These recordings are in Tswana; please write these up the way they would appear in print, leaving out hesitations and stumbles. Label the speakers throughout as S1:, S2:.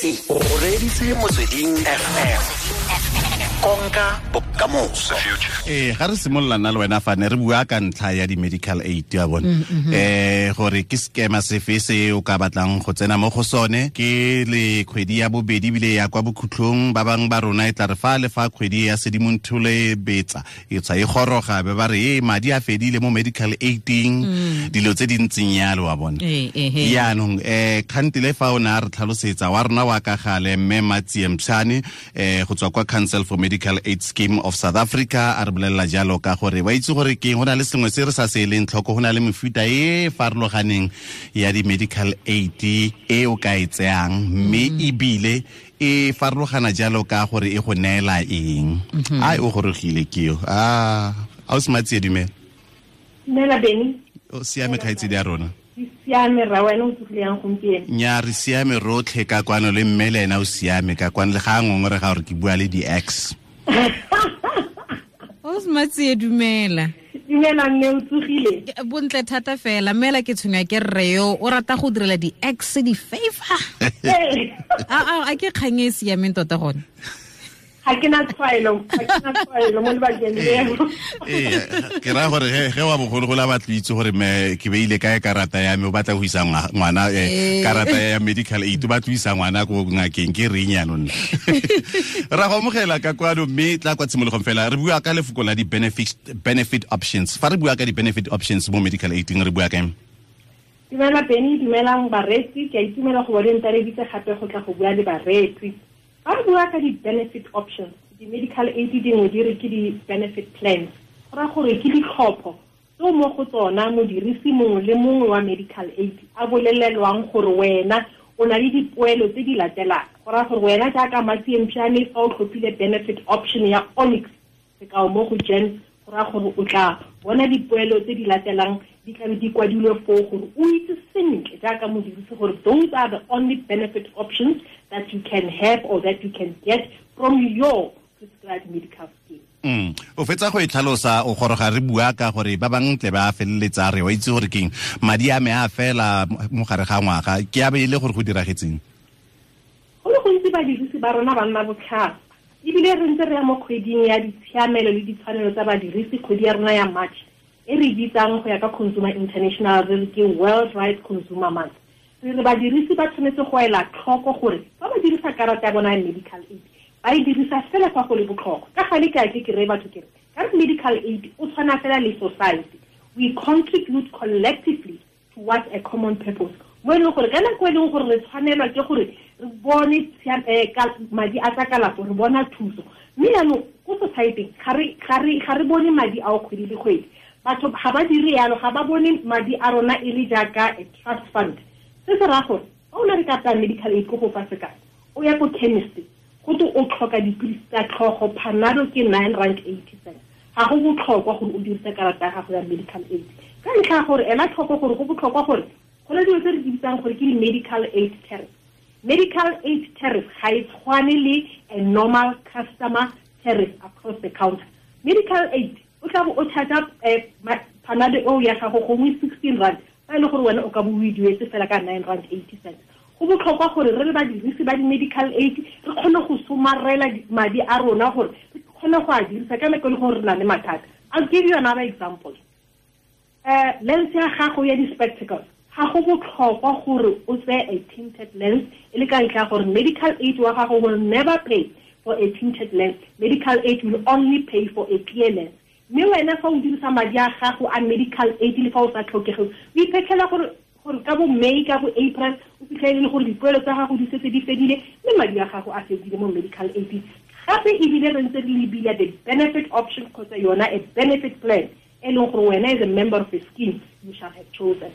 S1: O reditse Motsweding FM. Konka bokamoso.
S2: Ga re simolola nna le wena fa ne re bua ka ntlha ya di-medical aid ya bone, gore ke sekema sefe se o ka batlang go tsena mo go sone. Ke le kgwedi ya bobedi ebile ya kwa bokhutlong, ba bangwe ba rona e tla re fa le fa kgwedi ya Sedimonthole betsa e tswa e goroga, be ba re e madi a fedile mo medical aiding, dilo tse di ntseng yalo wa bona. Yaanong kgantele fa o ne a re tlhalosetsa wa rona wa ka gale, mme Matsie Mpshane go tswa kwa Council for Medical Aid Scheme of South Africa, a re bolelela jalo ka gore wa itse gore ke go na le sengwe se re sa se eleng tlhoko, go na le mefuta e farologaneng ya di-medical aid e o ka e tseyang, mme ebile e farologana jalo ka gore e go neela eng. Ai, o gorogile ke yo. A o se Matsie, dumela.
S3: Dumela, Beny.
S2: O siame, kgaitsedi ya rona?
S3: Ke siame ra, wena o tsogile yang gompieno?
S2: Nya, re siame rotlhe ka kwano, le mme le ena o siame ka kwano, le ga a ngongore ga gore ke bua le di-ex.
S4: O Matsie, dumela.
S3: Dumela mme, o tsogile?
S4: Bontle thata fela. Mmela, ke tshwenywa ke rre yo o rata go direla di-ex di-favor. A ke kgang e e siameng tota gone?
S3: Ga ke na tshwaelo, ga ke na tshwaelo mo lebakeng leo.
S2: Ee, ke raya gore ge wa bogologolo a batlo itse gore me ke beile kae karata ya me, o batla go isa ngwana karata ya medical aid, o batla go isa ngwana ko ngakeng, ke reng yaanong nna? Ra go amogela ka kwano, mme tla kwa tshimologong fela re bua ka lefoko la di-benefit options. Fa re bua ka di-benefit options mo medical aiding, re bua kaeng?
S3: Dumela Beny, dumelang bareetsi. Ke a itumela go bo le ntareditse gape go tla go bua le bareetsi. Fa re bua ka di-benefit options, di-medical aid dingwe di re ke di-benefit plans, go raya gore ke ditlhopho tseo mo go tsona modirisi mongwe le mongwe wa medical aid a bolelelwang gore wena o na le dipoelo tse di latelang. Go raya gore wena jaaka Matsie Mpšane, fa o tlhophile benefit option ya Onyx, sekao mo go GEMS, go raya gore o tla bona dipoelo tse di latelang, di tlabe di kwadilwe foo gore o itse sentle jaaka modirisi gore those are the only benefit options that you can have or that you can get from your prescribed medical scheme.
S2: O fetsa go e tlhalosa, o goroga re bua ka gore ba bangwe tle ba feleletsa re wa itse gore keng, madi a me a fela mo gare ga ngwaga, ke a be e le gore go diragetseng?
S3: Go le gontsi badirisi ba rona ba nna botlhaswa, ebile re ntse re ya mo kgweding ya ditshiamelo le ditshwanelo tsa badirisi, kgwedi ya rona ya March e re bitsang go ya ka Consumer International re re ke World Rights Consumer Month. Re re badirisi ba tshwanetse go ela tlhoko gore fa ba dirisa karata ya bona ya medical aid, ba e dirisa fela fa go le botlhokwa. Ka gale ke a ke reye batho ke re ka re medical aid o tshwana fela le society, we contribute collectively towards a common purpose, mo e leng gore ka nako e leng gore re tshwanelwa ke gore re bone madi a tsa kalafo, re bona thuso, mme jaanong ko society ga re bone madi ao kgwedi le kgwedi. Batho ga ba dire yalo, ga ba bone madi a rona e le jaaka a trust fund. Se se raya gore fa o na le karata ya medical aid, ko go fa sekao, o ya ko chemist, go te o tlhoka dipilisi tsa tlhogo, Panado ke R9.80, ga go botlhokwa gore o dirise karata ya gago ya medical aid, ka ntlha ya gore ela tlhoko gore go botlhokwa gore go na dilo tse re di bitsang gore ke di-medical aid tariff. Medical aid tariff ga e tshwane le a normal customer tariff across the counter. Medical aid o tla bo o charge Panado eo ya gago gongwe R16, fa e le gore wena o ka bo o e duetse fela ka R9.80. Go botlhokwa gore re le badirisi ba di-medical aid re kgone go somarela madi a rona gore re kgone go a dirisa ka nako e le gore re na le mathata. I'll give you another example. Lens ya gago ya di-spectacles, ga go botlhokwa gore o tseye a tinted lens, e le ka ntlha ya gore medical aid wa gago will never pay for a tinted lens. Medical aid will only pay for a clear lens. Mme wena fa o dirisa madi a gago a medical aid le fa o sa tlhokege, o iphetlhela gore ka bo May, ka bo April, o fitlhele le gore dipoelo tsa gago di setse di fedile, mme madi a gago a fedile mo medical aid. Gape ebile re ntse re lebile the benefit option kgotsa yona a benefit plan e leng gore wena as a member of a scheme you shall have chosen.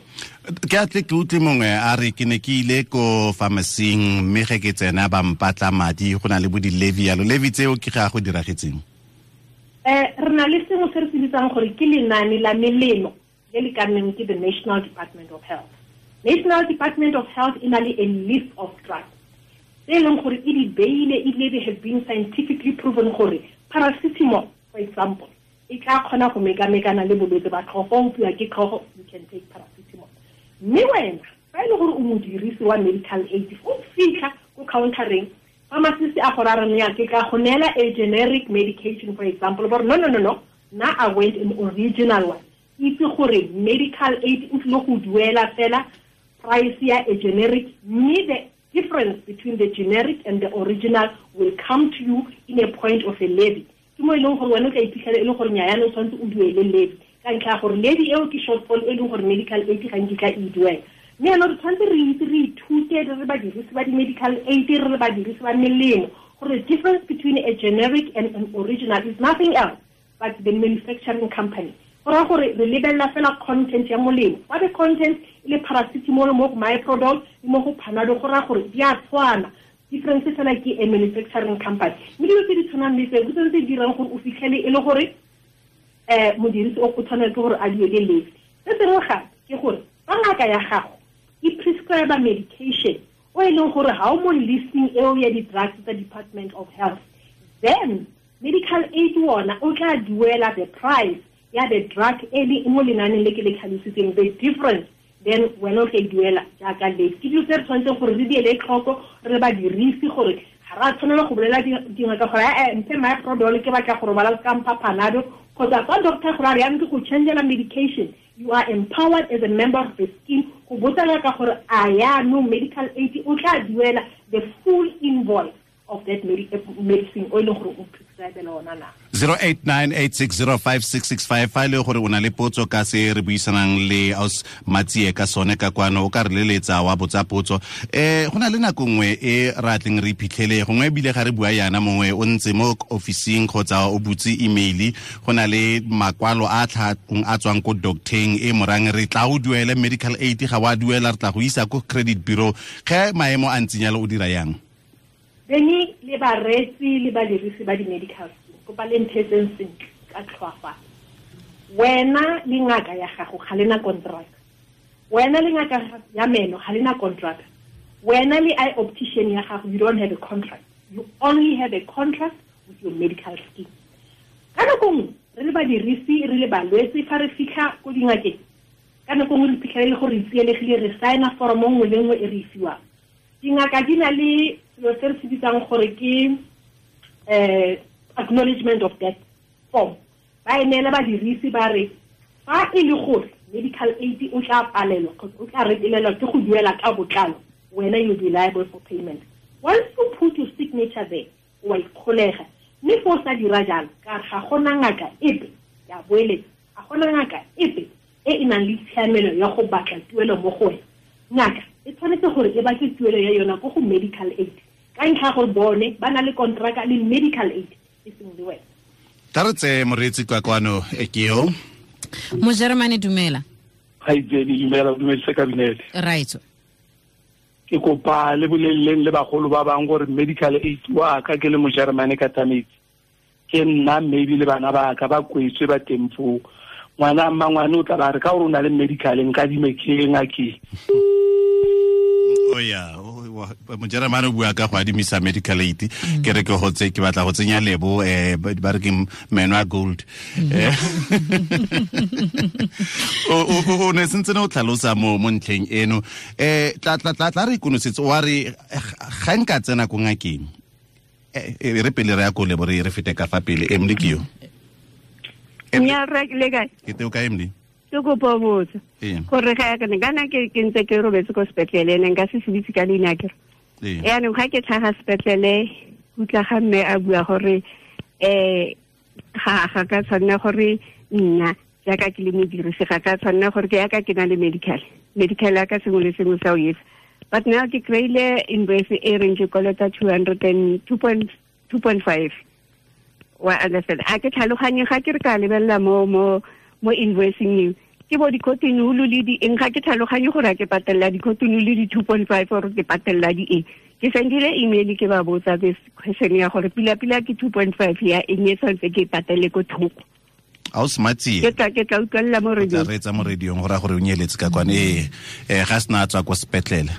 S2: Ke atle ke utlwe mongwe a re, ke ne ke ile ko pharmacy-ing, mme ge ke tsena ba mpatla madi, go na le bo di-levy yalo, levy tseo ke ga go diragetseng?
S3: Re na le sengwe se re se bitsang gore ke lenane la melemo le le ka nneng ke the National Department of Health. National Department of Health e na le a list of drugs tse e leng gore e di beile, ebile they have been scientifically proven gore paracetamol, for example, e tla kgona go mekamekana le bolwetse ba tlhogo. Fa o opiwa ke tlhogo, you can take paracetamol. Mme wena fa e le gore o modirisi wa medical aid, o fitlha ko countereng, pharmacist a go ra re ya ke ka go neela a generic medication, for example, but no, now I went an original one. Itse gore medical aid o tlile go duela fela price ya a generic, mme the difference between the generic and the original will come to you in a point of a levy. Ke mo e leng gore wena o tla iphitlhela e le gore nnyaya o tshwanetse o duele levy ka ntlha ya gore levy eo ke shortfall e leng gore medical aid ga nkitla e duela. Mme yaanong re tshwanetse re itse, re ithute re re badirisi ba di-medical aid, re re badirisi ba melemo, gore the difference between a generic and an original is nothing else but the manufacturing company. Go raya gore re lebelela fela content ya molemo. Fa the content e le paracetamol mo go Myprodol le mo go Panado, go raya gore di a tshwana. Difference fela ke a manufacturing company. Mme dilo tse di tshwanang le tseo ke tsone tse di dirang gore o fitlhele e le gore modirisi o tshwanetse gore a duele levy. Se sengwe gape ke gore fa ngaka ya gago e prescribe medication o e leng gore ga o mo listing eo ya di-drugs tsa Department of Health, then medical aid wona o tla duela the price ya the drug e le mo lenaneng le ke le tlhalositseng, the difference then wena o tla e duela jaaka levy. Ke dilo tse re tshwanetseng gore re di ele tlhoko re badirisi, gore ga re a tshwanela go bolela dingaka gore mphe Myprodol ke batla go robala ka mpha Panado, kgotsa fa doctor gore a re yang ke go changela medication, you are empowered as a member of the scheme go botsa ngaka gore a yaanong medical aid o tla duela the full invoice of that medicine o e leng gore o prescribela ona na.
S2: 0898605665 fa le gore o na le potso ka se re buisanang le aus Matsie ka sone ka kwano, o ka re leletsa wa botsa potso. Go na le nako nngwe e ra tleng re iphitlhele gongwe ebile ga re bua yana, mongwe o ntse mo officing kgotsa o butse email, go na le makwalo a tlhakong a tswang ko docteng e morang re tla o duele medical aid, ga wa duela re tla go isa ko credit bureau. Ge maemo a ntseng jalo o dira yang?
S3: Beni le bareetsi le badirisi ba di-medical scheme, kopa le nthetseng sentle ka tlhoafalo. Wena le ngaka ya gago ga lena contract. Wena le ngaka ya meno ga lena contract. Wena le eye optician ya gago, you don't have a contract. You only have a contract with your medical scheme. Ka nako nngwe re le badirisi, re le balwetse, fa re fitlha ko dingakeng, ka nako nngwe re phitlhele le gore re tsielегile, re signa foromo nngwe le nngwe e re e fiwang. Dingaka di na le selo se re se bitsang gore ke acknowledgement of death form. Ba e neela badirisi ba re fa e le gore medical aid o tla palelwa kgotsa o tla retelelwa ke go duela ka botlalo, wena you'll be liable for payment. Once you put your signature there, o a ikgolega. Mme fa o sa dira jalo, ka ga gona ngaka epe, ya boeletsa, ga gona ngaka epe e e nang le tshiamelo ya go batla tuelo mo go wena. Ngaka e tshwanetse gore e batle tuelo ya yona ko go medical aid, ka ntlha gore bone ba na le contract le medical aid e seng le wena.
S2: Tla re tseye moreetsi kwa kwano e ke yo.
S4: Mojeremane, dumela.
S5: Kgaitsedi, dumela, o dumedise kabinete.
S4: Right.
S5: Ke kopa le boleleng le bagolo ba bang gore medical aid wa ka ke le Mojeremane ka Tametsi. Ke nna maybe le bana ba ka ba kwetswe ba teng foo. Ngwana mmangwane o tla ba re ka gore o na le medical nka dime ke ngakeng.
S2: O ya, Mojeremane o bua ka go adimisa medical aid. Ke re ke go tse ke batla go tsenya lebo ba re ke meno a gold. O ne sentse ne o tlhalosa mo ntlheng eno. Tla re ikonosetse wa re ga nka tsena ko ngakeng. Re pele re ya ko lebo re fete ka fa pele. Emily ke yo.
S6: Nya re le kae?
S2: Ke teo ka Emily.
S6: Ke kopa botsa gore ga ke ne kana ke ntse ke robetse ko sepetlele, ne nka se se bitse ka leina ke re. Yaanong ga ke tlhaga sepetlele, utla ga mme a bua gore ga ka tshwanela gore nna jaaka ke le modirisi ga ka tshwanela gore ke yaka ke na le medical ya ka sengwe le sengwe sa o etsa. But now ke kry-ile invoice e reng ke kolota 202.5. Wa understand? A ke tlhaloganye ga ke re ka lebelela mo invoicing eo ke bo di-cotton wool le di eng, ga ke tlhaloganye gore a ke patelela di-cotton wool le di-2.5 or ke patelela di eng. Ke sendile email ke ba botsa this question ya gore pila-pila ke 2.5 ya eng e tshwanetse ke patele ko thoko.
S2: A o smartsie.
S6: Ke tla utlwelela mo radio.
S2: Tla reetsa mo radiong gore a gore o nyeletse ka kwane. Ga sena a tswa kwa sepetlele.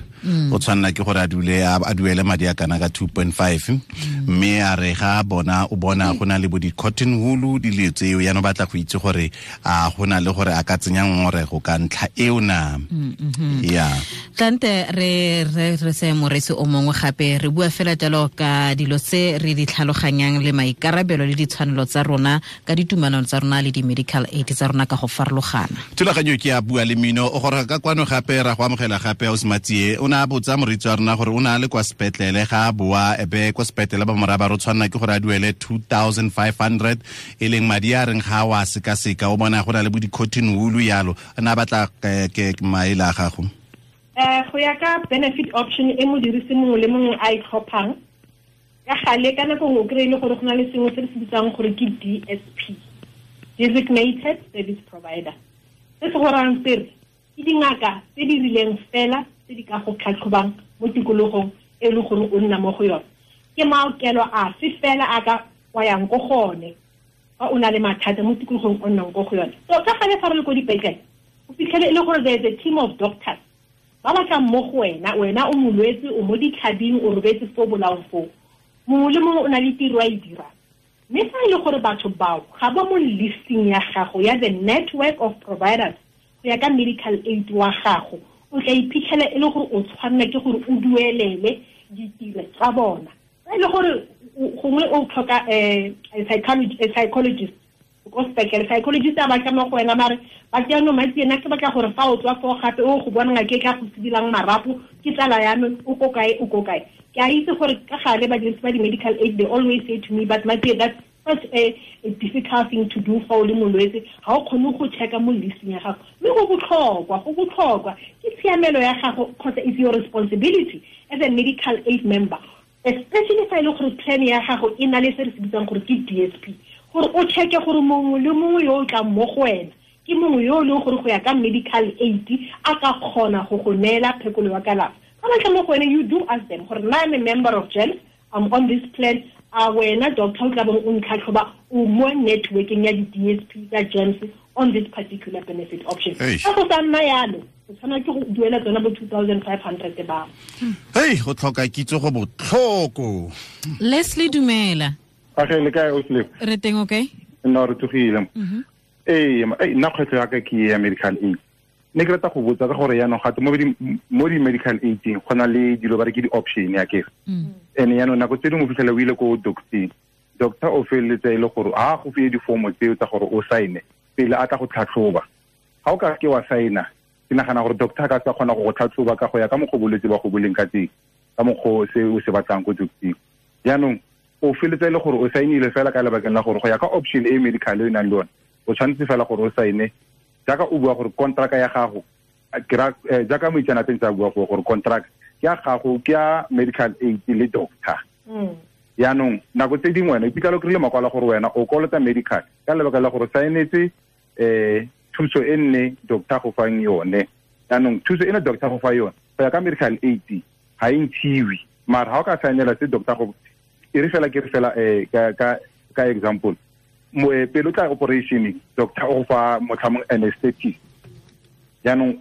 S2: O tshwanela ke gore a dule a duele madi a kana ka 2.5, mme a re ga bona o bona go na le bo di-cotton wool dilo tseo, yaanong batla go itse gore a go na le gore a ka tsenya ngongorego ka ntlha eo na. Yeah.
S4: Tlante re se moresi o mongwe gape re bua fela jalo ka dilo tse re di tlhaloganyang le maikarabelo le ditshwanelo tsa rona ka ditumelano tsa rona le di-medical aid tsa rona ka go farologana.
S2: Thulaganyo ke ya Bua le Mmino o goroga ka kwano gape ra go amogela gape Ausi o ne a botsa moreetsi wa rona gore o ne a le kwa sepetlele ga a boa ebe kwa sepetlele ba moraba re tshwanela ke gore a duele 2500 e leng madi a reng ga wa sekaseka o bona go na le bo di-cotton wool yalo, a ne a batla ke maele a gago.
S3: Go ya ka benefit option e modirisi mongwe le mongwe a e tlhophang, ka gale ka nako nngwe o kry-e le gore go na le sengwe se re se bitsang gore ke DSP, Designated Service Provider. Se se gorang sere ke dingaka tse di rileng fela tse di ka go tlhatlhobang mo tikologong e leng gore o nna mo go yone. Ke maokelo afe fela a ka wa yang ko gone fa o na le mathata mo tikologong o nnang ko go yone. So ka gale fa re le ko dipetlele o fitlhele e le gore there is a team of doctors ba batlang mo go wena, wena o molwetse, o mo ditlhabing, o robetse fo bolaong foo, mongwe le mongwe o na le tiro a e dirang. Mme fa e le gore batho bao ga ba mo listing ya gago ya the network of providers go ya ka medical aid wa gago, o tla iphitlhela e le gore o tshwanela ke gore o duelele ditiro tsa bona. Fa e le gore gongwe o tlhoka a psychologist ko sepetlele, psychologist a batla mo go wena mare ba jaanong matsi ena ke batla gore fa o tswa foo gape o go bona ngaka e tla go sidilang marapo, ke tsala ya me, o ko kae, o ko kae. Ke a itse gore ka gale badirisi ba di-medical aid they always say to me, but Matsi, that's such a difficult thing to do fa o le molwetse, ga o kgone go checka mo listing ya gago. Mme go botlhokwa ke tshiamelo ya gago kgotsa it's your responsibility as a medical aid member, especially fa e le gore plan ya gago e na le se re se bitsang gore ke DSP, gore o checke gore mongwe le mongwe yo o tlang mo go wena ke mongwe yo o leng gore go ya ka medical aid a ka kgona go go neela phekolo ya kalafo. Fa ba tla mo go wena, you do ask them gore nna I'm a member of GEMS, I'm on this plan, a wena doctor o tla bong o ntlhatlhoba o mo networking ya di-DSP tsa GEMS on this particular benefit option. Fa go sa nna yalo, o tshwanela ke go duela tsona bo 2500 ba.
S2: Hei, go tlhoka kitso go botlhoko.
S4: Leslie, dumela.
S7: Age le kae o Slip?
S4: Re teng, okay?
S7: Nna re tsogile. Ee, nna kgwetlho ya ka ke ya medical aid. Ne ke rata go botsa ka gore yaanong gape mo di-medical aid-ing go na le dilo ba re ke di-option ya kere. And yaanong nako tse dingwe o fitlhela o ile ko doctor, doctor o feleletsa e le gore a go file difomo tseo tsa gore o saene pele a tla go tlhatlhoba. Ga o ka ke wa saena, ke nagana gore doctor a ka sa kgona go go tlhatlhoba ka go ya ka mokgwa bolwetse ba go boleng ka teng, ka mokgwa se o se batlang ko doctor. Jaanong o feletsa e le gore o saenile fela ka lebakeng la gore go ya ka option e medical e nang le yone, o tshwanetse fela gore o saene jaaka o bua gore contract ya gago, jaaka moitseanape tsa bua gore contract ke ya gago ke ya medical aid le doctor. Jaanong nako tse dingwe wena iphitlhela o kry-ile makwalo gore wena o kolota medical ka lebaka la gore saenetse thuso e nne doctor go fang yone. Jaanong thuso e ne doctor go fa yone go ya ka medical aid ga e ntshiwe, mara ga o ka saenela se doctor go e re fela ke re fela ka example, pele o tla operation doctor o fa motlhamong anesthetist. Jaanong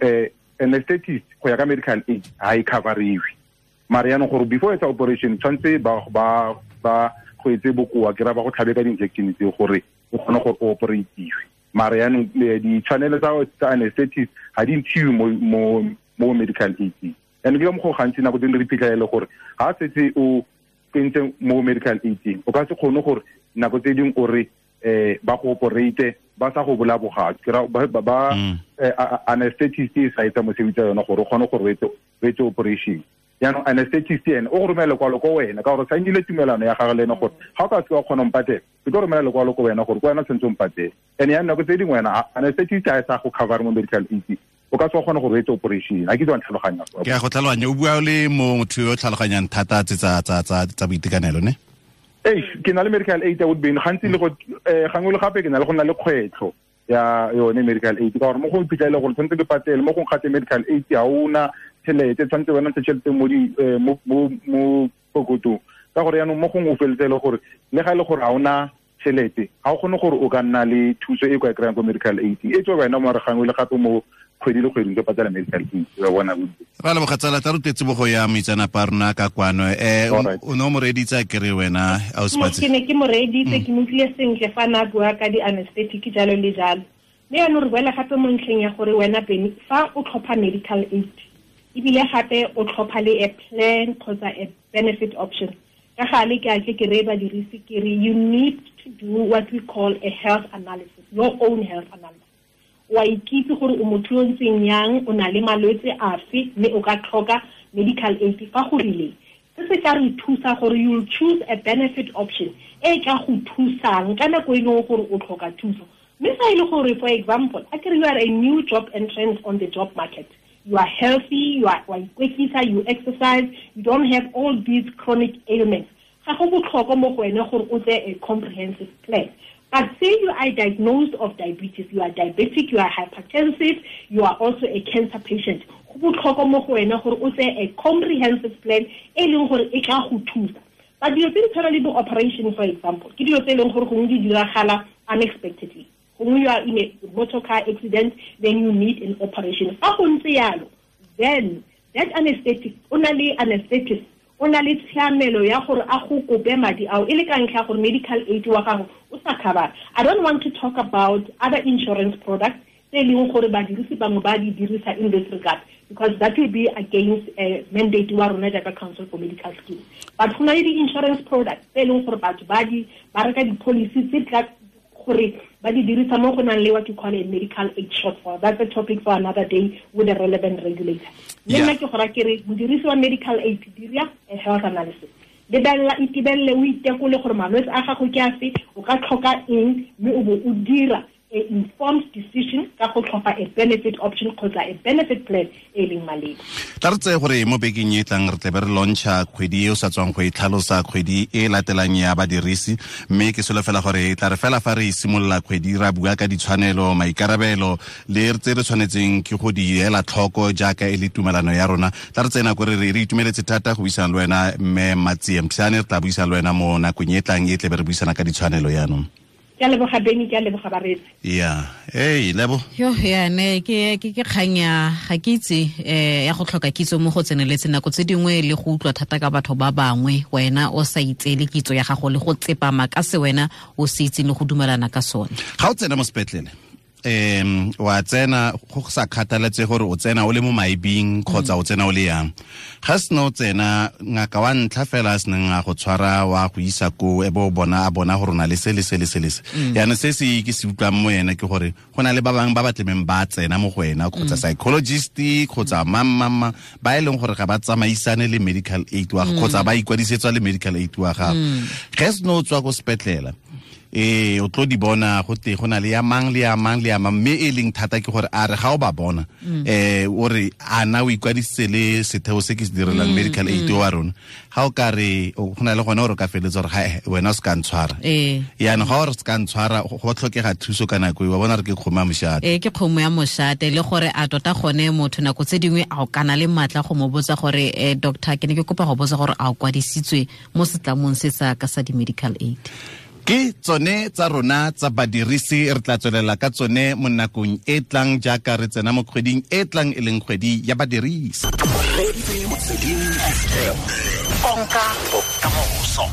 S7: anesthetist go ya ka medical aid ga e coveriwe, mara jaanong gore before etsa operation tshwanetse ba go etse bokoa ke ra ba go tlhabe ka di-injection tseo gore o kgone gore o operatiwe. Mara jaanong ditshwanelo tsa anesthetist ga di ntshiwe mo medical aid. And ke ka mokgwa gantsi nako tse dingwe re iphitlhela e le gore ga setse o tsentse mo medical aid o ka se kgone gore nako tse dingwe o re ba go operate ba sa go bolaya bogatsu, ke ra ba anesthetist e sa etsa mosebetsi wa yona gore o kgone gore o etse operation. Jaanong anesthetist ene o go romela lekwalo ko wena ka gore o saenile tumelano ya gagwe le ene gore ga o ka se wa kgona go mpatela, ke tlo romela lekwalo ko wena gore ko wena tshwanetse o mpatele. And yaanong nako tse dingwe wena anesthetist ga e sa go cover mo medical aid, o ka se wa kgona gore o etse operation. A ke itse wa ntlhaloganya.
S2: Ke a go tlhaloganya, o bua le motho yo o tlhaloganyang thata tse tsa boitekanelo ne?
S7: Ee, ke na le medical aid ya Woodbine gantsi le go gangwe le gape ke na le go nna le kgwetlho ya yone medical aid ka gore mo go iphitlhela gore tshwanetse ke patele, mo go gate medical aid ga ona tšhelete, tshwanetse wena ntshe tšhelete mo di mo pokotong ka gore yaanong mo gongwe o feletse e le gore le ga e le gore ga ona tšhelete ga o kgone gore o ka nna le thuso e kwa e kry-ang ko medical aid e tswe wena mare gangwe le gape mo kgwedi le kgwedi ntse patela medical aid wa bona bontsi.
S2: Ra leboga tsala, tla rutetse bogo ya moitsanapa rona ka kwano. O ne o mo reeditse kere wena ausi?
S3: Ke ne ke mo reeditse, ke mo utlwile sentle fa na bua ka di-anesthetic jalo le jalo. Mme yaanong re boela gape mo ntlheng ya gore wena Benny, fa o tlhopha medical aid ebile gape o tlhopha le a plan kgotsa a benefit option, ka gale ke a tle ke reye badirisi ke re you need to do what we call a health analysis, your own health analysis. Wa ikitse gore o motho yo ntseng yang, o na le malwetse afe, mme o ka tlhoka medical aid fa go rileng. Se se tla re thusa gore you'll choose a benefit option e tla go thusang ka nako e leng gore o tlhoka thuso. Mme fa e le gore, for example, a kere you are a new job entrant on the job market, you are healthy, you are wa ikwetlisa, you exercise, you don't have all these chronic ailments, ga go botlhokwa mo go wena gore o tseye a comprehensive plan. But say you are diagnosed of diabetes, you are diabetic, you are hypertensive, you are also a cancer patient, go botlhokwa mo go wena gore o tseye a comprehensive plan e leng gore e tla go thusa. But dilo tse di tshwana le bo-operation, for example, ke dilo tse e leng gore gongwe di diragala unexpectedly. Gongwe you are in a motor car accident, then you need an operation. Fa go ntse yalo, then that anesthetic, o na le anesthetist, o na le tshiamelo ya gore a go kope madi ao e le ka ntlha ya gore medical aid wa gago o sa cover. I don't want to talk about other insurance products tse e leng gore badirisi bangwe ba di dirisa in this regard, because that will be against a mandate wa rona jaaka Council for Medical Schemes. But go na le di-insurance products tse e leng gore batho ba reka di-policy tse tla gore ba di dirisa mo go nang le what you call a medical aid shortfall. That's a topic for another day with a relevant regulator. Le nna ke gora ke re modirisi wa medical aid, dira a health analysis. Lebelela, itebelele, o itekole gore malwetse a gago ke afe, o ka tlhoka eng, mme o bo o dira a informed decision ka go tlhopha a benefit option kgotsa a benefit plan e leng maleba.
S2: Tla re tseye gore mo bekeng e tlang re tlebe re launcha kgwedi e o sa tswang go e tlhalosa, kgwedi e latelang ya badirisi, mme ke solofela gore e tla re fela fa re simolola kgwedi ra bua ka ditshwanelo, maikarabelo le tse re tshwanetseng ke go di ela tlhoko jaaka e le tumelano ya rona. Tla re tseye nako re re itumeletse thata go buisana le wena mme Matsie Mpsane, re tla buisana le wena mo nakong e tlang e tlebe re buisana ka ditshwanelo yaanong.
S3: Ke a leboga Benny, ke a leboga bareetsi.
S2: Yeah, hey Lebo.
S4: Yo ya ne ke kgang ya ga ke itse ya go tlhoka kitso mo go tseneletse nako tse dingwe le go utlwa thata ka batho ba bangwe, wena o sa itseele kitso ya gago le go tsepama ka se wena o se itseng le go dumelana ka sone.
S2: Ga o tsena mo sepetlele, wa tsena go sa kgathaletse gore o tsena o le mo maibing kgotsa o tsena o le yang. Ga sena o tsena, ngaka wa ntlha fela a seneng a go tshwara wa go isa ko e bo bona a bona gore o na le se le se le se le se. Yaanong se se ke se utlwang mo ena ke gore go na le ba bangwe ba ba tlemeng ba tsena mo go wena, kgotsa psychologist kgotsa mang ba e leng gore ga ba tsamaisane le medical aid wa kgotsa ba ikwadisetswa le medical aid wa gago. Ge seno o tswa ko sepetlela, o tlo di bona go te go na le ya mang le ya mang le ya mang, mme e leng thata ke gore a re ga o ba bona o re a na o ikwadisitse le setheo se ke se direlang medical aid wa rona, ga o ka re go na le gone gore o ka feletsa gore ga wena o se ka ntshwara. Yaanong ga o re se ka ntshwara, go tlhokega thuso ka nako e, wa bona re ke kgomo ya mošate.
S4: Ke kgomo ya mošate, le gore a tota gone motho nako tse dingwe a o kana le maatla go mo botsa gore doctor, ke ne ke kopa go botsa gore a o kwadisitswe mo setlamong se sa ka sa di-medical aid.
S2: Ke tsone tsa rona tsa badirisi, re tla tswelela ka tsone mo nakong e tlang jaaka re tsena mo kgweding e tlang e leng kgwedi ya badirisi.
S1: Konka bokamoso.